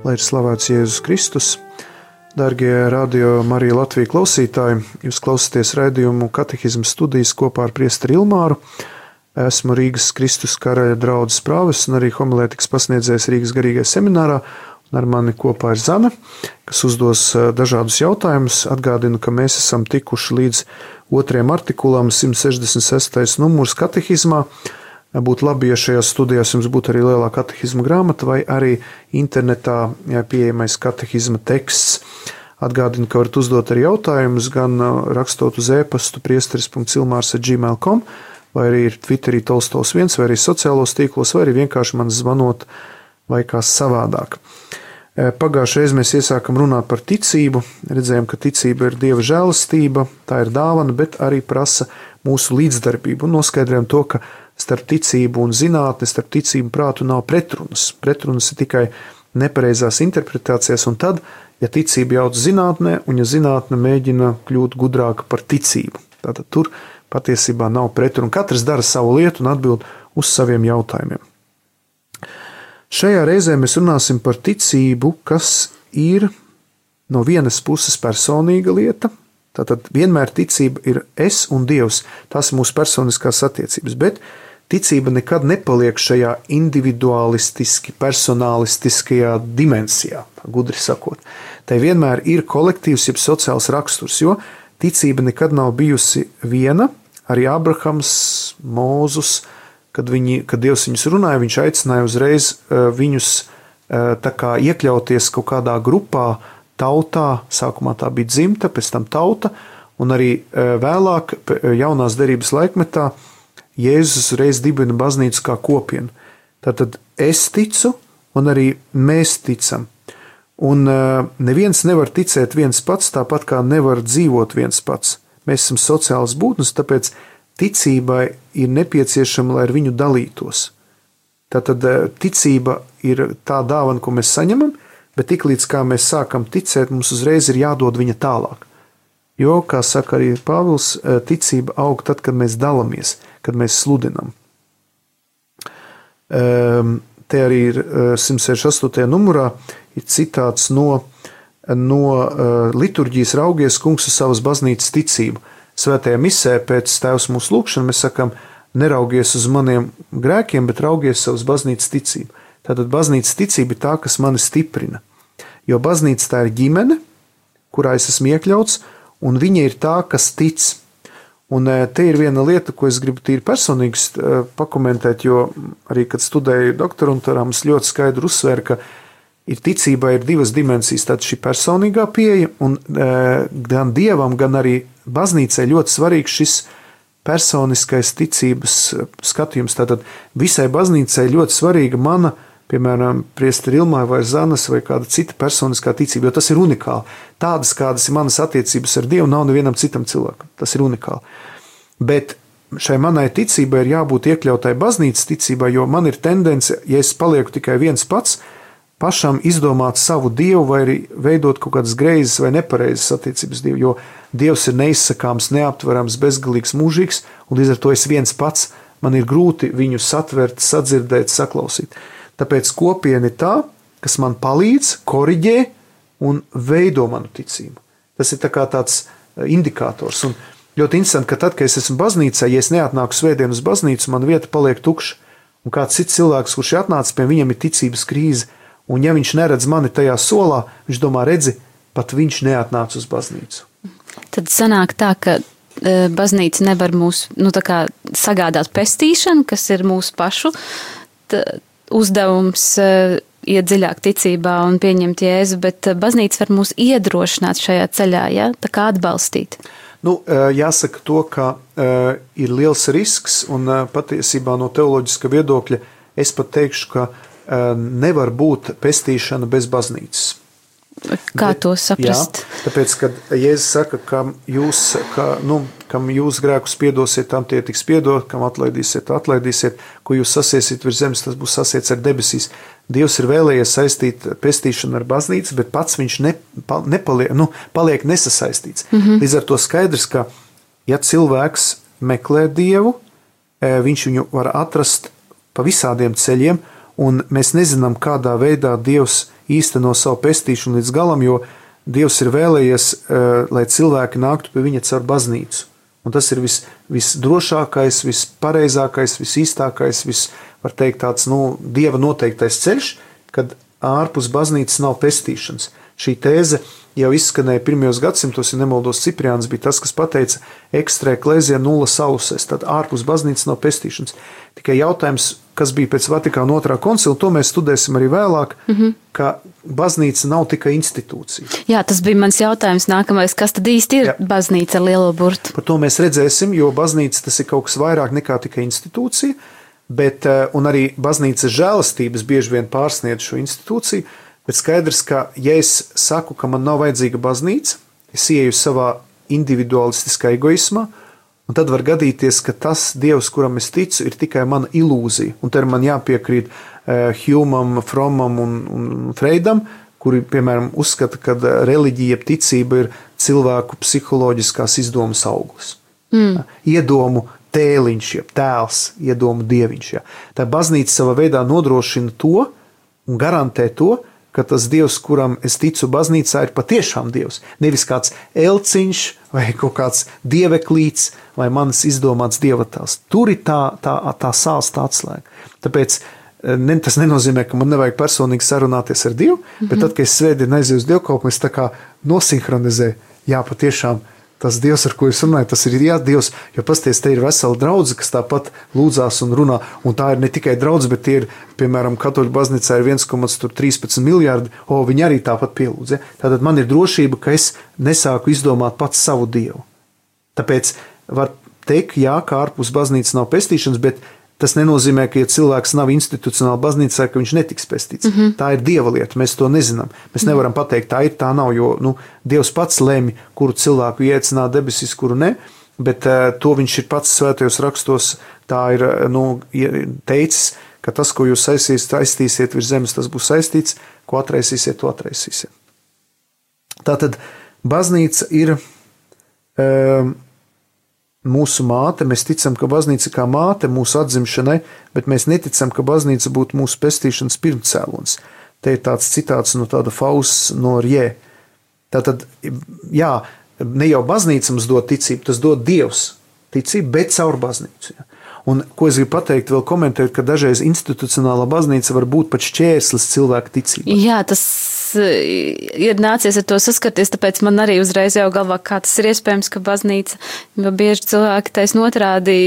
Lai ir slavēts Jēzus Kristus. Dargie Radio Marija Latvija klausītāji, jūs klausāties raidījumu katehismu studijas kopā ar priesteri Ilmāru. Esmu Rīgas Kristus Karaļa draudzes prāvests un arī homilētikas pasniedzējs Rīgas garīgajā seminārā. Un ar mani kopā ir Zana, kas uzdos dažādus jautājumus. Atgādinu, ka mēs esam tikuši līdz 2. artikulam 166. numurs katehismā. Būtu labi, ja šajās studijās jums būtu arī lielā katehisma grāmata vai arī internetā pieejamais katehisma teksts. Atgādinu, ka varat uzdot arī jautājumus gan rakstot uz e-pastu priesteris.ilmārs@gmail.com vai arī ir Twitterī Tolstovs 1 vai arī sociālos tīklos vai arī vienkārši man zvanot vai kā savādāk. Pagājušajā reizē mēs iesākam runāt par ticību. Redzējām, ka ticība ir Dieva žēlastība, tā ir dāvana, bet arī prasa mūsu līdzdarbību. Un noskaidrojam to, ka starp ticību un zinātni, starp ticību un prātu nav pretrunas. Pretrunas ir tikai nepareizās interpretācijas, un tad, ja ticība jauc zinātnē, un ja zinātne mēģina kļūt gudrāka par ticību, tātad tur patiesībā nav pretruna. Katrs dara savu lietu un atbild uz saviem jautājumiem. Šajā reizē mēs runāsim par ticību, kas ir no vienas puses personīga lieta. Tātad vienmēr ticība ir es un Dievs. Tās ir mūsu personiskās attiecības, bet ticība nekad nepaliek šajā individualistiski, personalistiskajā dimensijā, gudri sakot. Tai vienmēr ir kolektīvs, jeb sociāls raksturs, jo ticība nekad nav bijusi viena. Arī Abrahams, Mūzus, kad Dievs viņus runāja, viņš aicināja uzreiz viņus tā kā iekļauties kaut kādā grupā, tautā, sākumā tā bija dzimta, pēc tam tauta, un arī vēlāk, jaunās derības laikmetā, Jēzus reiz dibina baznīcu kā kopienu. Tātad es ticu, un arī mēs ticam. Un neviens nevar ticēt viens pats, tāpat kā nevar dzīvot viens pats. Mēs esam sociāls būtnes, tāpēc ticībai ir nepieciešama, lai ar viņu dalītos. Tātad ticība ir tā dāvana, ko mēs saņemam, bet tiklīdz kā mēs sākam ticēt, mums uzreiz ir jādod viņa tālāk. Jo, kā saka arī Pāvils, ticība aug tad, kad mēs dalamies, kad mēs sludinam. Te arī ir 168. numurā ir citāts no liturģijas raugies kungs uz savas baznīcas ticību. Svētajā misē pēc Tēvs mūsu lūgšana mēs sakam, neraugies uz maniem grēkiem, bet raugies savas baznīcas ticību. Tātad baznīcas ticība ir tā, kas mani stiprina. Jo baznīca tā ir ģimene, kurā es esmu iekļauts, un viņa ir tā, kas tic. Un te ir viena lieta, ko es gribu tīri personīgi pakomentēt, jo arī, kad studēju doktorantūrā, mums ļoti skaidri uzsvēra, ka ticībā ir divas dimensijas. Tātad šī personīgā pieeja, un gan Dievam, gan arī baznīcai ļoti svarīgs šis personiskais ticības skatījums. Tātad visai baznīcai ļoti svarīga mana, piemēram, priesteri Ilmāra vai Zanas vai kāda cita personiskā ticība, jo tas ir unikāli. Tādas, kādas ir manas attiecības ar Dievu, nav nevienam citam cilvēkam. Tas ir unikāli. Bet šai manai ticībai ir jābūt iekļautai baznīcas ticībā, jo man ir tendence, ja es palieku tikai viens pats, pašam izdomāt savu Dievu vai arī veidot kaut kādas greizes vai nepareizes attiecības Dievu, jo Dievs ir neizsakāms, neaptverams, bezgalīgs, mūžīgs, un līdz ar to es viens pats, man ir grūti viņu satvert, sadzirdēt, saklausīt. Tāpēc kopiena ir tā, kas man palīdz, koriģē un veido manu ticību. Tas ir tā kā tāds indikators. Un ļoti interesanti, ka tad, kad es esmu baznīcā, ja es neatnāku svētdien uz baznīcu, man vieta paliek tukša. Un kāds cits cilvēks, kurš ir atnācis pie viņam, ir ticības krīze. Un ja viņš neredz mani tajā solā, viņš domā, redzi, pat viņš neatnāca uz baznīcu. Tad sanāk tā, ka baznīca nevar mūs sagādāt pestīšanu, kas ir mūsu pašu uzdevums iet dziļāk ticībā un pieņemt Jēzu, bet baznīca var mūs iedrošināt šajā ceļā, ja? Tā kā atbalstīt. Jāsaka to, ka ir liels risks un patiesībā no teoloģiska viedokļa es pat teikšu, ka nevar būt pestīšana bez baznīcas. Kā to saprast? Jā, tāpēc, kad Jēzus saka, kam jūs grēkus piedosiet, tam tie tiks piedot, kam atlaidīsiet, atlaidīsiet, ko jūs sasiesiet virs zemes, tas būs sasiets ar debesīs. Dievs ir vēlējies saistīt pestīšanu ar baznīcu, bet pats viņš paliek nesasaistīts. Līdz ar to skaidrs, ka ja cilvēks meklē Dievu, viņš viņu var atrast pa visādiem ceļiem, un mēs nezinām, kādā veidā Dievs īsteno savu pestīšanu līdz galam, jo Dievs ir vēlējies, lai cilvēki nāktu pie viņa caur baznīcu. Un tas ir visdrošākais, vispareizākais, visīstākais, var teikt tāds, Dieva noteiktais ceļš, kad ārpus baznīcas nav pestīšanas. Šī tēze jau izskanēja 1. gadsimtos, ja nemaldos, Cipriāns bija tas, kas pateica extra ecclesia nulla salus, tad ārpus baznīcas nav pestīšanas. Tikai jautājums, kas bija pēc Vatikāna 2. koncila, to mēs studēsim arī vēlāk, ka baznīca nav tikai institūcija. Jā, tas bija mans jautājums nākamais, kas tad īsti ir baznīca ar lielo burtu? Par to mēs redzēsim, jo baznīca tas ir kaut kas vairāk nekā tikai institūcija, un arī baznīcas žēlastības bieži vien pārsniedz šo institūciju, bet skaidrs, ka ja es saku, ka man nav vajadzīga baznīca, es ieju savā individualistiskā egoismā, un tad var gadīties, ka tas Dievs, kuram es ticu, ir tikai mana ilūzija. Un te man jāpiekrīt Hjūmam, Fromam un Freidam, kuri, piemēram, uzskata, ka reliģija, ticība ir cilvēku psiholoģiskās izdomas auglis. Iedomu tēliņš, tēls, iedomu dieviņš. Tā baznīca savā veidā nodrošina to un garantē to, ka tas Dievs, kuram es ticu baznīcā, ir patiešām Dievs. Nevis kāds elciņš vai kaut kāds dieveklīts vai manis izdomāts dievatēls. Tur ir tā sāls, tā atslēga. Tāpēc tas nenozīmē, ka man nevajag personīgi sarunāties ar Dievu, bet tad, kad es svētdien aizēju uz dievkalpojumu, es tā kā nosinhronizēju, patiešām tas Dievs, ar ko es runāju, tas ir Dievs, jo pasties, te ir vesela draudze, kas tāpat lūdzās un runā, un tā ir ne tikai draudze, bet tie ir, piemēram, katoļu baznīcā ir 1,13 miljārdi, viņi arī tāpat pielūdz. Tātad man ir drošība, ka es nesāku izdomāt pats savu Dievu. Tāpēc var teikt, ka ārpus baznīcas nav pestīšanas, bet tas nenozīmē, ka, ja cilvēks nav institucionāli baznīcā, ka viņš netiks pestīts. Tā ir Dieva lieta, mēs to nezinām. Mēs nevaram pateikt, tā ir, tā nav, jo Dievs pats lemj, kuru cilvēku ieaicināt debesīs, kuru ne, bet to viņš ir pats svētajos rakstos, tā ir teicis, ka tas, ko jūs aiztīsiet virs zemes, tas būs saistīts, ko atraisīsiet, to atraisīsiet. Tātad baznīca ir mūsu māte, mēs ticam, ka baznīca kā māte mūsu atzimšanai, bet mēs neticam, ka baznīca būtu mūsu pestīšanas pirmcēlons. Te ir tāds citāts no tāda Fausts no Rjē. Tātad, ne jau baznīca mums dod ticību, tas dod Dievs ticību, bet caur baznīcu. Un ko es gribu pateikt, vēl komentēt, ka dažreiz institucionālā baznīca var būt pat šķērslis cilvēka ticībā. Jā, tas ir nācies ar to saskarties, tāpēc man arī uzreiz jau galvā, kā tas ir iespējams, ka baznīca, jo bieži cilvēki taisn otrādi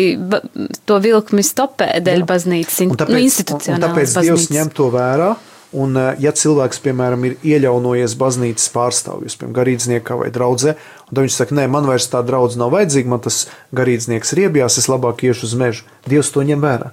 to vilkmi stopē dēļ baznīcas, institucionālas tāpēc baznīcas. Dievs ņem to vērā, un ja cilvēks, piemēram, ir ieļaunojies baznīcas pārstāvjus, piemēram, garīdzniekā vai draudzē, un tad viņš saka, nē, man vairs tā draudze nav vajadzīga, man tas garīdznieks riebjās, es labāk iešu uz mežu. Dievs to ņem vērā.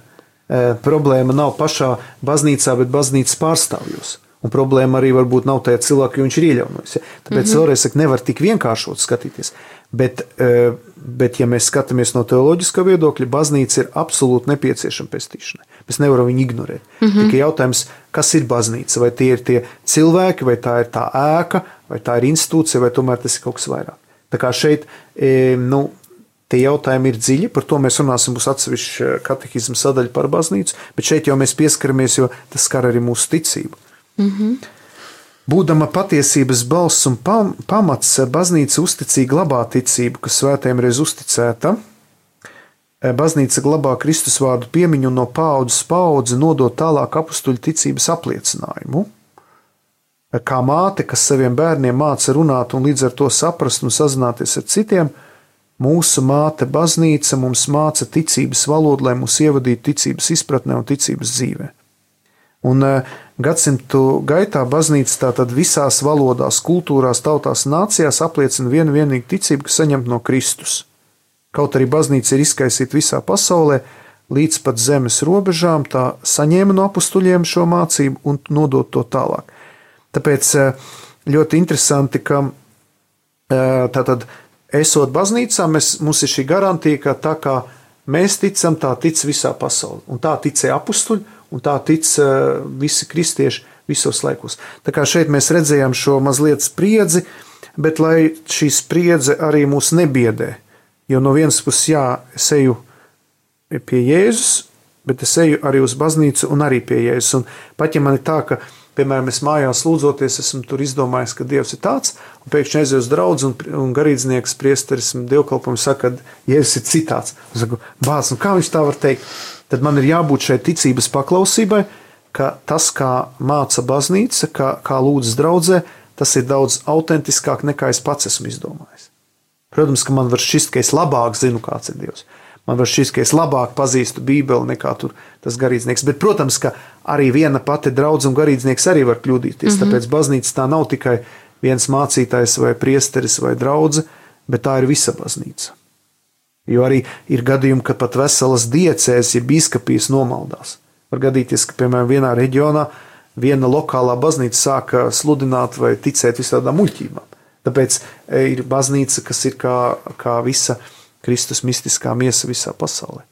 Problēma nav pašā baznīcā, bet baznīcas pārstāvjos. Un problēma arī varbūt nav tajā cilvēkā, jo viņš ir ieļaunojis. Tāpēc vēlreiz saka, nevar tik vienkāršot skatīties. Bet, ja mēs skatāmies no teoloģiskā viedokļa, baznīca ir absolūti nepieciešama pestīšanai. Mēs nevaram viņu ignorēt. Tikai jautājums, kas ir baznīca? Vai tie ir tie cilvēki, vai tā ir tā ēka, vai tā ir institūcija, vai tomēr tas ir kaut kas vairāk. Tā kā šeit, tie jautājumi ir dziļi, par to mēs runāsim, būs atsevišķa katehisma sadaļa par baznīcu, bet šeit jau mēs pieskaramies, jo tas skar arī mūsu ticību. Būdama patiesības balss un pamats, baznīca uzticīgi glabā ticību, kas svētajiem reiz uzticēta. Baznīca glabā Kristus vārdu piemiņu un no paaudzes paudzi nodot tālāk apustuļu ticības apliecinājumu. Kā māte, kas saviem bērniem māca runāt un līdz ar to saprast un sazināties ar citiem, mūsu māte baznīca mums māca ticības valodu, lai mūs ievadītu ticības izpratnē un ticības dzīvē. Un gadsimtu gaitā baznīca tātad visās valodās, kultūrās, tautās un nācijās apliecina vienīgu ticību, kas saņemta no Kristus. Kaut arī baznīca ir izkaisīta visā pasaulē, līdz pat zemes robežām, tā saņēma no apustuļiem šo mācību un nodot to tālāk. Tāpēc ļoti interesanti, ka tātad esot baznīcā, mums ir šī garantija, ka tā kā mēs ticam, tā tic visā pasaulē. Un tā ticēja apustuļi, un tā tic visi kristieši visos laikos. Tā kā šeit mēs redzējām šo mazliet spriedzi, bet lai šī spriedze arī mūs nebiedē, jo no vienas puses, es eju pie Jēzus, bet es eju arī uz baznīcu un arī pie Jēzus. Un pat ja man ir tā, ka, piemēram, es mājās lūdzoties, esmu tur izdomājis, ka Dievs ir tāds, un pēkšņi aizēju uz draudzi un garīdznieks, priesteris, dievkalpojums saka, ka Jēzus ir citāds. Es saku, bāc, nu kā viņš tā var teikt? Tad man ir jābūt šai ticības paklausībai, ka tas, kā māca baznīca, kā lūdzas draudzē, tas ir daudz autentiskāk nekā es pats esmu izdomājis. Protams, ka man var šķist, ka es labāk zinu, kāds ir Dievs. Man var šķist, ka es labāk pazīstu Bībeli nekā tur tas garīdznieks. Bet, protams, ka arī viena pati draudze un garīdznieks arī var kļūdīties. Tāpēc baznīca tā nav tikai viens mācītājs vai priesteris vai draudze, bet tā ir visa baznīca. Jo arī ir gadījumi, ka pat veselas diecēs, ja bīskapijas nomaldās. Var gadīties, ka, piemēram, vienā reģionā viena lokālā baznīca sāka sludināt vai ticēt visādām muļķībām. Tāpēc ir baznīca, kas ir kā visa Kristus mistiskā miesa visā pasaulē.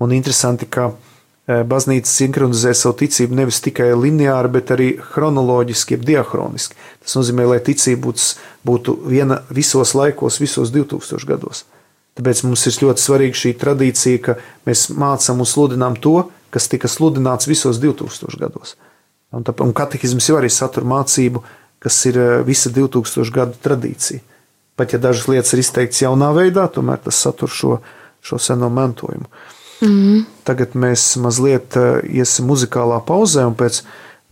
Un interesanti, ka baznīca sinhronizē savu ticību nevis tikai lineāri, bet arī chronoloģiski, jeb diahroniski. Tas nozīmē, lai ticība būtu viena visos laikos, visos 2000 gados. Tāpēc mums ir ļoti svarīga šī tradīcija, ka mēs mācām un sludinām to, kas tika sludināts visos 2000 gados. Un katehisms jau arī satur mācību, kas ir visa 2000 gadu tradīcija. Pat ja dažas lietas ir izteikts jaunā veidā, tomēr tas satur šo seno mantojumu. Tagad mēs mazliet iesim muzikālā pauzē, un pēc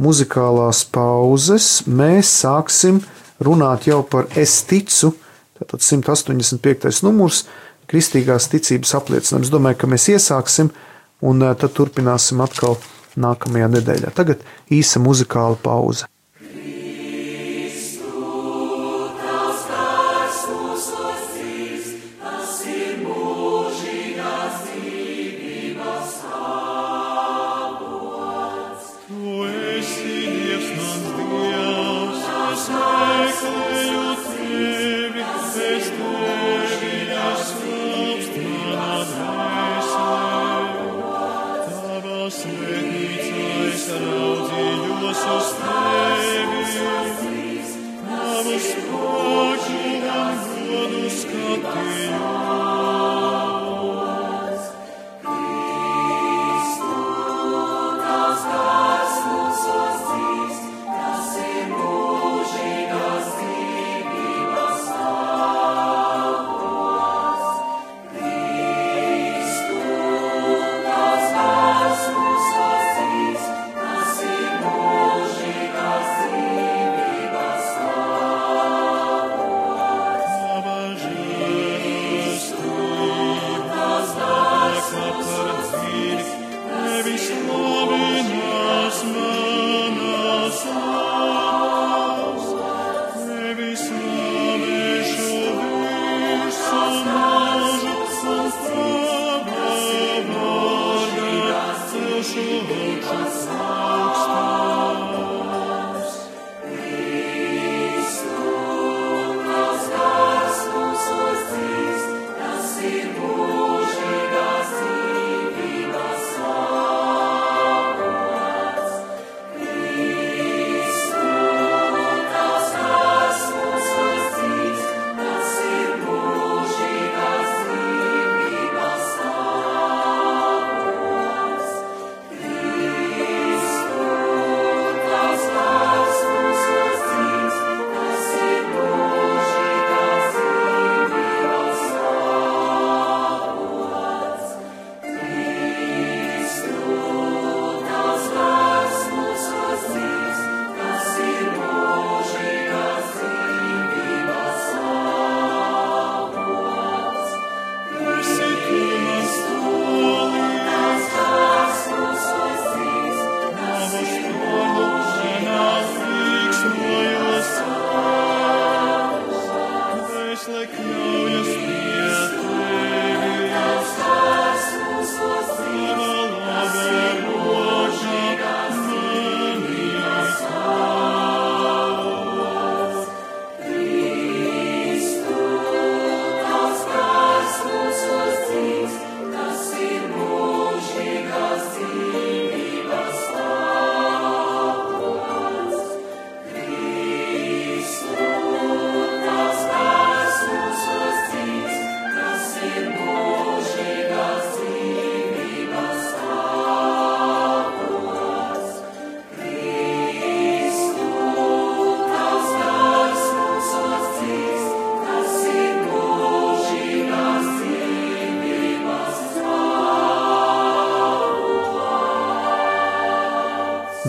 muzikālās pauzes mēs sāksim runāt jau par es ticu, tātad 185. numurs, kristīgās ticības apliecinājums. Es domāju, ka mēs iesāksim, un tad turpināsim atkal nākamajā nedēļā. Tagad īsa muzikāla pauze.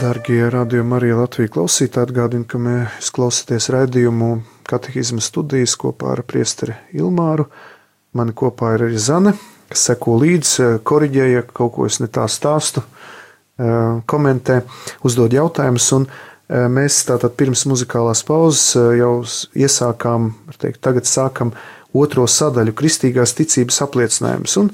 Darbie radio Marija Latvija klausītāji, atgādinu, ka mēs klausāties raidījumu Katehisma studijas kopā ar priesteri Ilmāru. Mani kopā ir arī Zane, kas seko līdzi, koriģē, ja kaut ko es ne tā stāstu, komentē, uzdod jautājumus. Un mēs tātad pirms muzikālās pauzes jau iesākām, tagad sākam otro sadaļu kristīgās ticības apliecinājumus. Un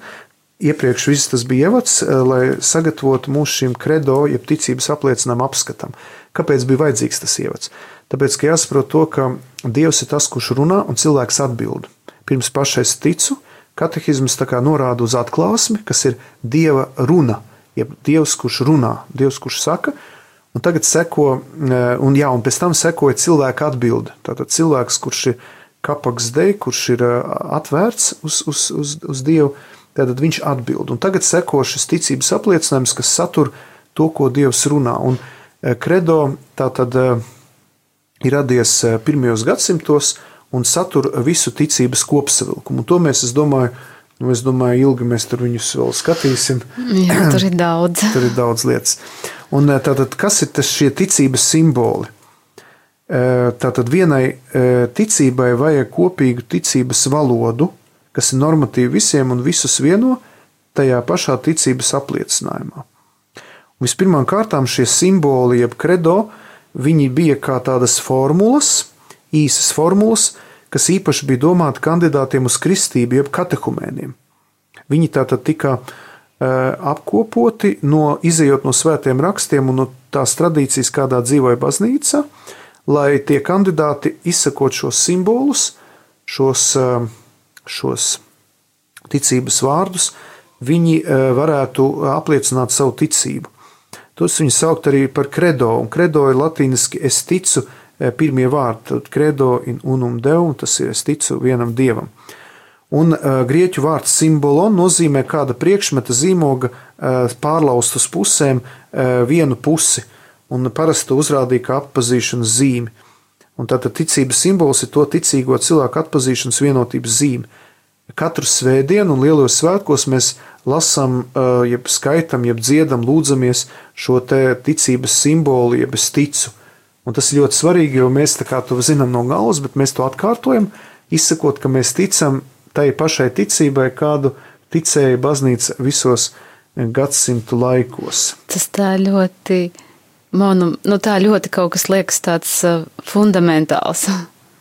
iepriekš viss tas bija ievads, lai sagatavotu mūsu šim kredo, jeb ticības apliecinājumu apskatam. Kāpēc bija vajadzīgs tas ievads? Tāpēc, ka jāsaprot to, ka Dievs ir tas, kurš runā un cilvēks atbild. Pirms pašais ticu, katehisms tā kā norāda uz atklāsmi, kas ir Dieva runa, jeb Dievs, kurš runā, Dievs, kurš saka, un tagad seko, un pēc tam sekoja cilvēka atbilde. Tātad cilvēks, kurš ir kapaks dei, kurš ir atvērts uz Dievu, tātad viņš atbild. Un tagad seko šis ticības apliecinājums, kas satur to, ko Dievs runā. Un kredo tātad ir radies pirmajos gadsimtos un satur visu ticības kopsavilkumu. Un to mēs, es domāju, ilgi mēs tur viņus vēl skatīsim. Jā, tur ir daudz. Tur ir daudz lietas. Un tātad, kas ir šie ticības simboli? Tātad vienai ticībai vajag kopīgu ticības valodu, kas ir normatīvi visiem un visus vieno tajā pašā ticības apliecinājumā. Un vispirmām kārtām šie simboli, jeb kredo, viņi bija kā tādas formulas, īsas formulas, kas īpaši bija domāti kandidātiem uz kristību, jeb katehumēniem. Viņi tātad tika apkopoti, izejot no svētiem rakstiem un no tās tradīcijas, kādā dzīvoja baznīca, lai tie kandidāti izsakot šos simbolus, šos ticības vārdus, viņi varētu apliecināt savu ticību. Tos viņi saukt arī par kredo, un kredo ir latīniski es ticu, pirmie vārdi, tad kredo in unum deum, tas ir es ticu vienam dievam. Un grieķu vārds simbolon nozīmē kāda priekšmeta zīmoga pārlaust uz pusēm vienu pusi, un parasti to uzrādīja kā atpazīšanas zīmi. Un tātad ticības simbols ir to ticīgo cilvēku atpazīšanas vienotības zīme. Katru svētdienu un lielos svētkos mēs lasām, jeb skaitam, jeb dziedam, lūdzamies šo te ticības simbolu, jeb es ticu. Un tas ir ļoti svarīgi, jo mēs tā kā to zinām no galvas, bet mēs to atkārtojam, izsakot, ka mēs ticam tai pašai ticībai, kādu ticēja baznīca visos gadsimtu laikos. Tas tā ļoti... tā ļoti kaut kas liekas tāds fundamentāls.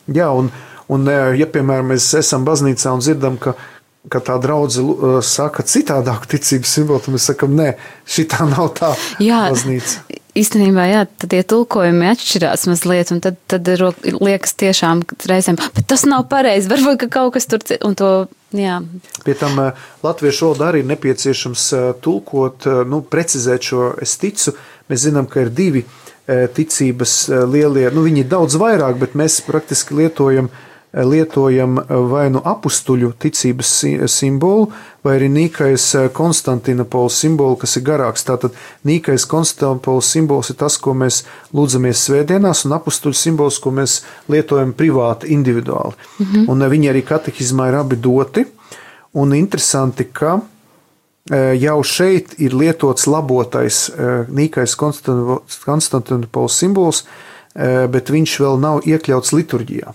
Jā, un ja, piemēram, mēs esam baznīcā un dzirdam, ka tā draudze saka citādāku ticības simbolu, tad mēs sakam, nē, šitā nav tā baznīca. Īstenībā, tad tie tulkojumi atšķirās mazliet, un tad liekas tiešām reizēm, bet tas nav pareizi, varbūt, ka kaut kas tur, un to, jā. Pie tam latviešu valodā arī ir nepieciešams tulkot, precizēt šo es ticu. Mēs zinām, ka ir divi ticības lielie, viņi ir daudz vairāk, bet mēs praktiski lietojam vai nu apustuļu ticības simbolu, vai arī Nīkais Konstantinopols simbolu, kas ir garāks. Tātad Nīkais Konstantinopols simbols ir tas, ko mēs lūdzamies svētdienās, un apustuļu simbols, ko mēs lietojam privāti, individuāli. Un viņi arī katehizmā ir abi doti, un interesanti, ka jau šeit ir lietots labotais Nīkais Konstantinopols simbols, bet viņš vēl nav iekļauts liturģijā.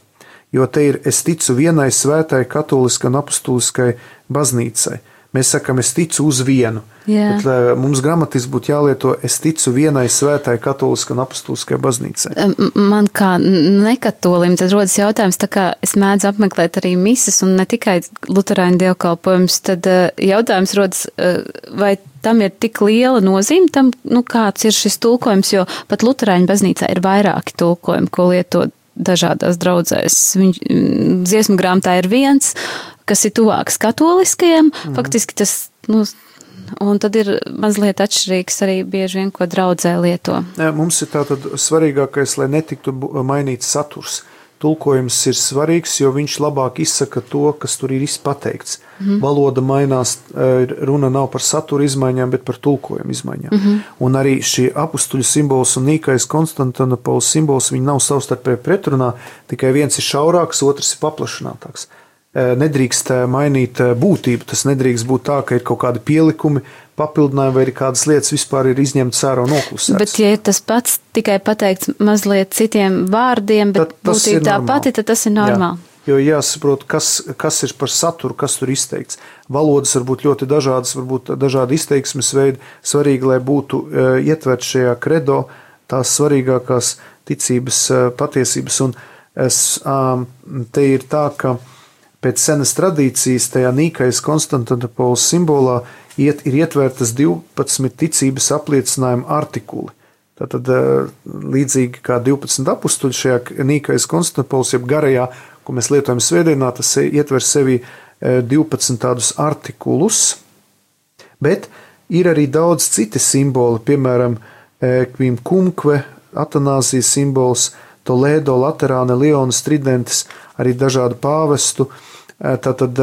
Jo te ir es ticu vienai svētai katoliskai un apustuliskai baznīcai. Mēs sakam, es ticu uz vienu. Jā. Bet mums gramatiski būtu jālieto es ticu vienai svētai katoliskai un apustuliskai baznīcai. Man kā nekatolim tad rodas jautājums, tā kā es mēdzu apmeklēt arī mises un ne tikai luterāņu dievkalpojumus, tad jautājums rodas, vai tam ir tik liela nozīme tam, kāds ir šis tulkojums, jo pat luterāņu baznīcā ir vairāki tulkojumi, ko lietot dažādās draudzēs. Dziesmu grāmatā ir viens, kas ir tuvāks katoliskajam, faktiski tas, un tad ir mazliet atšķirīgs arī bieži vien, ko draudzē lieto. Mums ir tātad svarīgākais, lai netiktu mainīts saturs. Tulkojums ir svarīgs, jo viņš labāk izsaka to, kas tur ir pateikts. Valoda mainās, runa nav par satura izmaiņām, bet par tulkojumu izmaiņām. Un arī šie apustuļu simbols un Nīkais Konstantinopols simbols, viņi nav savstarpēji pretrunā, tikai viens ir šaurāks, otrs ir paplašinātāks. nedrīkst mainīt būtību. Tas nedrīkst būt tā, ka ir kaut kādi pielikumi, papildinājumi vai ir kādas lietas vispār ir izņemtas ārā un noklusētas. Bet, ja ir tas pats tikai pateikts mazliet citiem vārdiem, bet būtība tā pati, tad tas ir normāli. Jā, jo jāsaprot, kas ir par saturu, kas tur izteikts. Valodas var būt ļoti dažādas, varbūt dažādi izteiksmes veidi. Svarīgi, lai būtu ietvert šajā kredo tās svarīgākās ticības patiesības. Un te ir tā, ka pēc senas tradīcijas tajā Nīkajas Konstantinopoles simbolā ir ietvērtas 12 ticības apliecinājuma artikuli. Tātad līdzīgi kā 12 apustuļi šajā Nīkajas Konstantinopoles, jeb garajā, ko mēs lietojam svētdienā, tas ietver sevi 12 tādus artikulus, bet ir arī daudz citi simboli, piemēram, Kvim Kumkve, Atanāzijas simbols, Toledo, Laterāne, Leonas, Tridentis, arī dažādu pāvestu. Tātad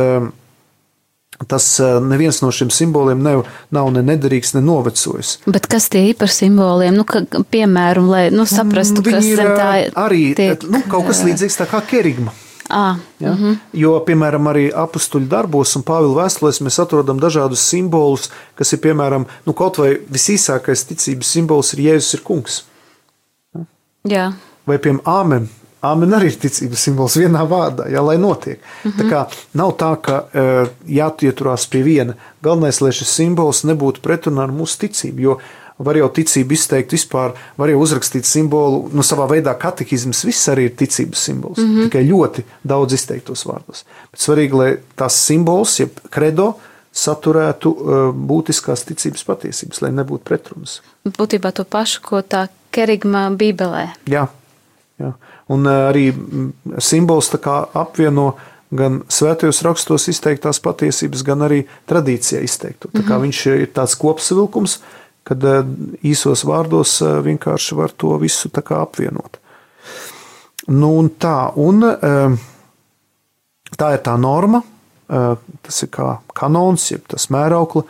tas neviens no šiem simboliem nav ne nederīgs, ne novecojis. Bet kas tie ir par simboliem? Piemēram, lai saprastu, kas tā arī kaut kas līdzīgs tā kā kerigma. Ja? Jo, piemēram, arī apustuļu darbos un Pāvila vēstulēs mēs atrodam dažādus simbolus, kas ir, piemēram, kaut vai visīsākais ticības simbols ir Jēzus ir kungs. Jā. Vai, piemēram, āmen. Āmen arī ir ticības simbols vienā vārdā, jā, lai notiek. Tā kā nav tā, ka jāieturās pie viena. Galvenais, lai šis simbols nebūtu pretrunā ar mūsu ticību, jo var jau ticību izteikt vispār, var jau uzrakstīt simbolu, savā veidā katehizms viss arī ir ticības simbols, tikai ļoti daudz izteiktos vārdos. Bet svarīgi, lai tās simbols, jeb kredo, saturētu būtiskās ticības patiesības, lai nebūtu pretrunas. Būtībā to pašu, ko tā kerigma Bībelē. Jā. Un arī simbols tā kā apvieno gan svētajos rakstos izteiktās patiesības, gan arī tradīcijā izteikto. Tā kā viņš ir tāds kopsavilkums, kad īsos vārdos vienkārši var to visu tā kā apvienot. Un tā ir tā norma, tas ir kā kanons, jeb tas mēraukla,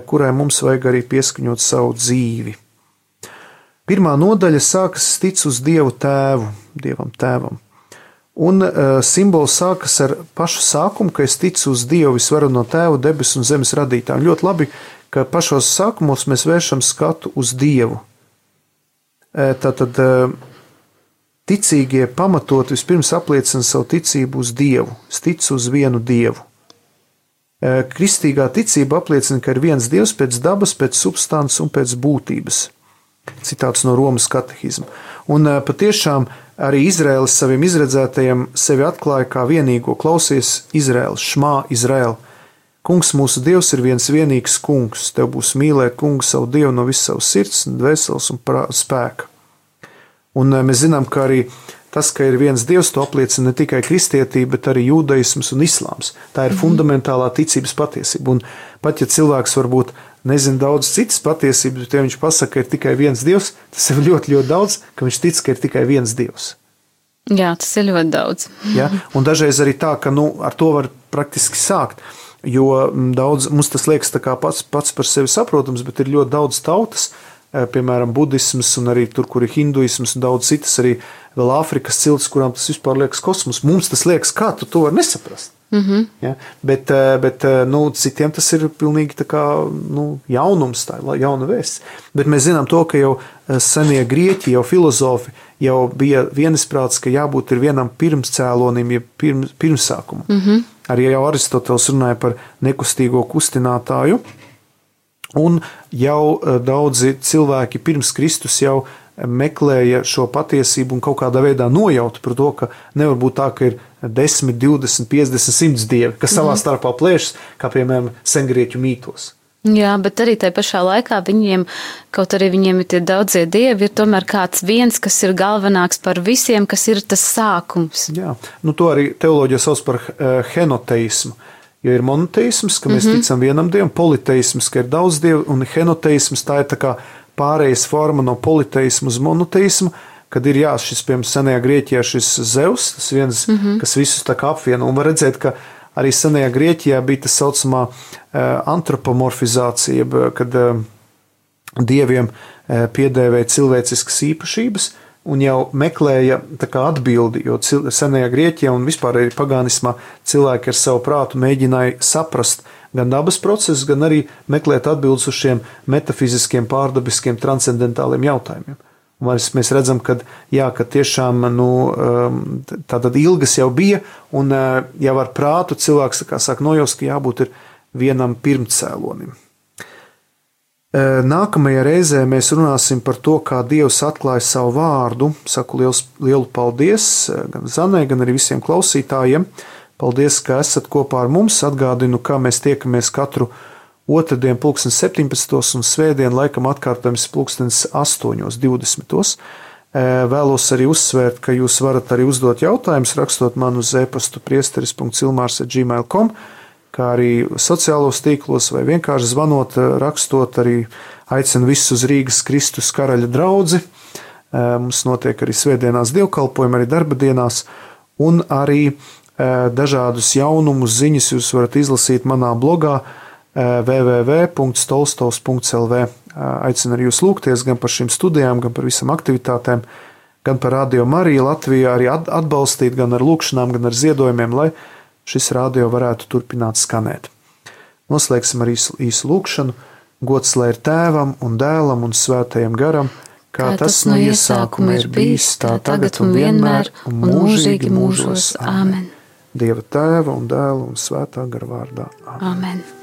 kurai mums vajag arī pieskaņot savu dzīvi. Pirmā nodaļa sākas tic uz Dievu tēvu, Dievam tēvam. Un simbols sākas ar pašu sākumu, ka es ticu uz Dievu visvareno tēvu, debesu un zemes radītāju. Ļoti labi, ka pašos sākumos mēs vēršam skatu uz Dievu. Tātad ticīgie pamatot vispirms apliecina savu ticību uz Dievu. Es ticu uz vienu Dievu. Kristīgā ticība apliecina, ka ir viens Dievs pēc dabas, pēc substances un pēc būtības. Citāts no Romas katehizma. Un patiešām arī Izraēlis saviem izredzētajiem sevi atklāja kā vienīgo. Klausies, Izraēlis, šmā Izraēl. Kungs mūsu Dievs ir viens vienīgs kungs. Tev būs mīlēt kungu savu Dievu no visas savas sirds, dvēseles un spēka. Un mēs zinām, ka arī tas, ka ir viens Dievs, to apliecina ne tikai kristietība, bet arī jūdaisms un islāms. Tā ir fundamentālā ticības patiesība. Un pat ja cilvēks varbūt nezina daudz citas patiesības, bet ja viņš pasaka, ka ir tikai viens Dievs, tas ir ļoti, ļoti daudz, ka viņš tic, ka ir tikai viens Dievs. Jā, tas ir ļoti daudz. Ja? Un dažreiz arī tā, ka ar to var praktiski sākt, jo daudz, mums tas liekas tā kā pats par sevi saprotams, bet ir ļoti daudz tautas, piemēram, budisms un arī tur, kur ir hinduisms un daudz citas arī vēl Āfrikas ciltis, kurām tas vispār liekas kosmos. Mums tas liekas, kā tu to var nesaprast. Ja? Bet citiem tas ir pilnīgi tā kā jaunums, tā ir jauna vēsts. Bet mēs zinām to, ka jau senie grieķi, jau filozofi jau bija vienisprāts, ka jābūt ir vienam pirmscēlonim, ja pirmsākumam. Arī jau Aristoteles runāja par nekustīgo kustinātāju, un jau daudzi cilvēki pirms Kristus jau meklēja šo patiesību un kaut kādā veidā nojauta par to, ka nevar būt tā, ka ir 10, 20, 50, 100 dievi, kas savā starpā plēšas, kā piemēram sengrieķu mītos. Jā, bet arī tajā pašā laikā viņiem, kaut arī viņiem ir tie daudzie dievi, ir tomēr kāds viens, kas ir galvenāks par visiem, kas ir tas sākums. Jā, to arī teoloģija sauc par henoteismu. Jo ir monoteisms, ka mēs ticam vienam dievam, politeisms, ka ir daudz dievu, un henoteisms tā ir tā kā pārējais forma no politeismu uz monoteismu, kad ir šis, piemēram, senajā Grieķijā šis Zeus, tas viens, kas visus tā kā apvieno, un var redzēt, ka arī senajā Grieķijā bija tas saucamā antropomorfizācija, kad dieviem piedēvēja cilvēciskas īpašības, un jau meklēja tā kā atbildi, jo senajā Grieķijā un vispār arī pagānismā cilvēki ar savu prātu mēģināja saprast gan dabas procesus, gan arī meklēt atbildes uz šiem metafiziskiem, pārdabiskiem, transcendentāliem jautājumiem. Un mēs redzam, ka tiešām tātad ilgas jau bija, un jau ar prātu cilvēks sāk nojaust, ka jābūt ir vienam pirmcēlonim. Nākamajā reizē mēs runāsim par to, kā Dievs atklāja savu vārdu. Saku lielu paldies gan Zanai, gan arī visiem klausītājiem. Paldies, ka esat kopā ar mums. Atgādinu, kā mēs tiekamies katru otrdien 17. un svētdien laikam atkārtojums 8:20. Vēlos arī uzsvērt, ka jūs varat arī uzdot jautājumus, rakstot man uz e-pastu priesteris.ilmārs@gmail.com, kā arī sociālos tīklos vai vienkārši zvanot, rakstot, arī aicinu visus uz Rīgas Kristus karaļa draudzi. Mums notiek arī svētdienās dievkalpojumi, arī darba dienās, un arī dažādus jaunumus, ziņas jūs varat izlasīt manā blogā www.stolstovs.lv. Aicinu arī jūs lūgties gan par šīm studijām, gan par visam aktivitātēm, gan par Radio Mariju Latvijā, arī atbalstīt gan ar lūkšanām, gan ar ziedojumiem, lai šis radio varētu turpināt skanēt. Noslēgsim ar īsu lūkšanu. Gods lai ir Tēvam un Dēlam un Svētajam Garam, kā tas no iesākuma ir bijis, tā tagad un vienmēr un mūžīgi mūžos. Āmen. Dieva Tēva un Dēla un Svētā Gara vārdā. Āmen.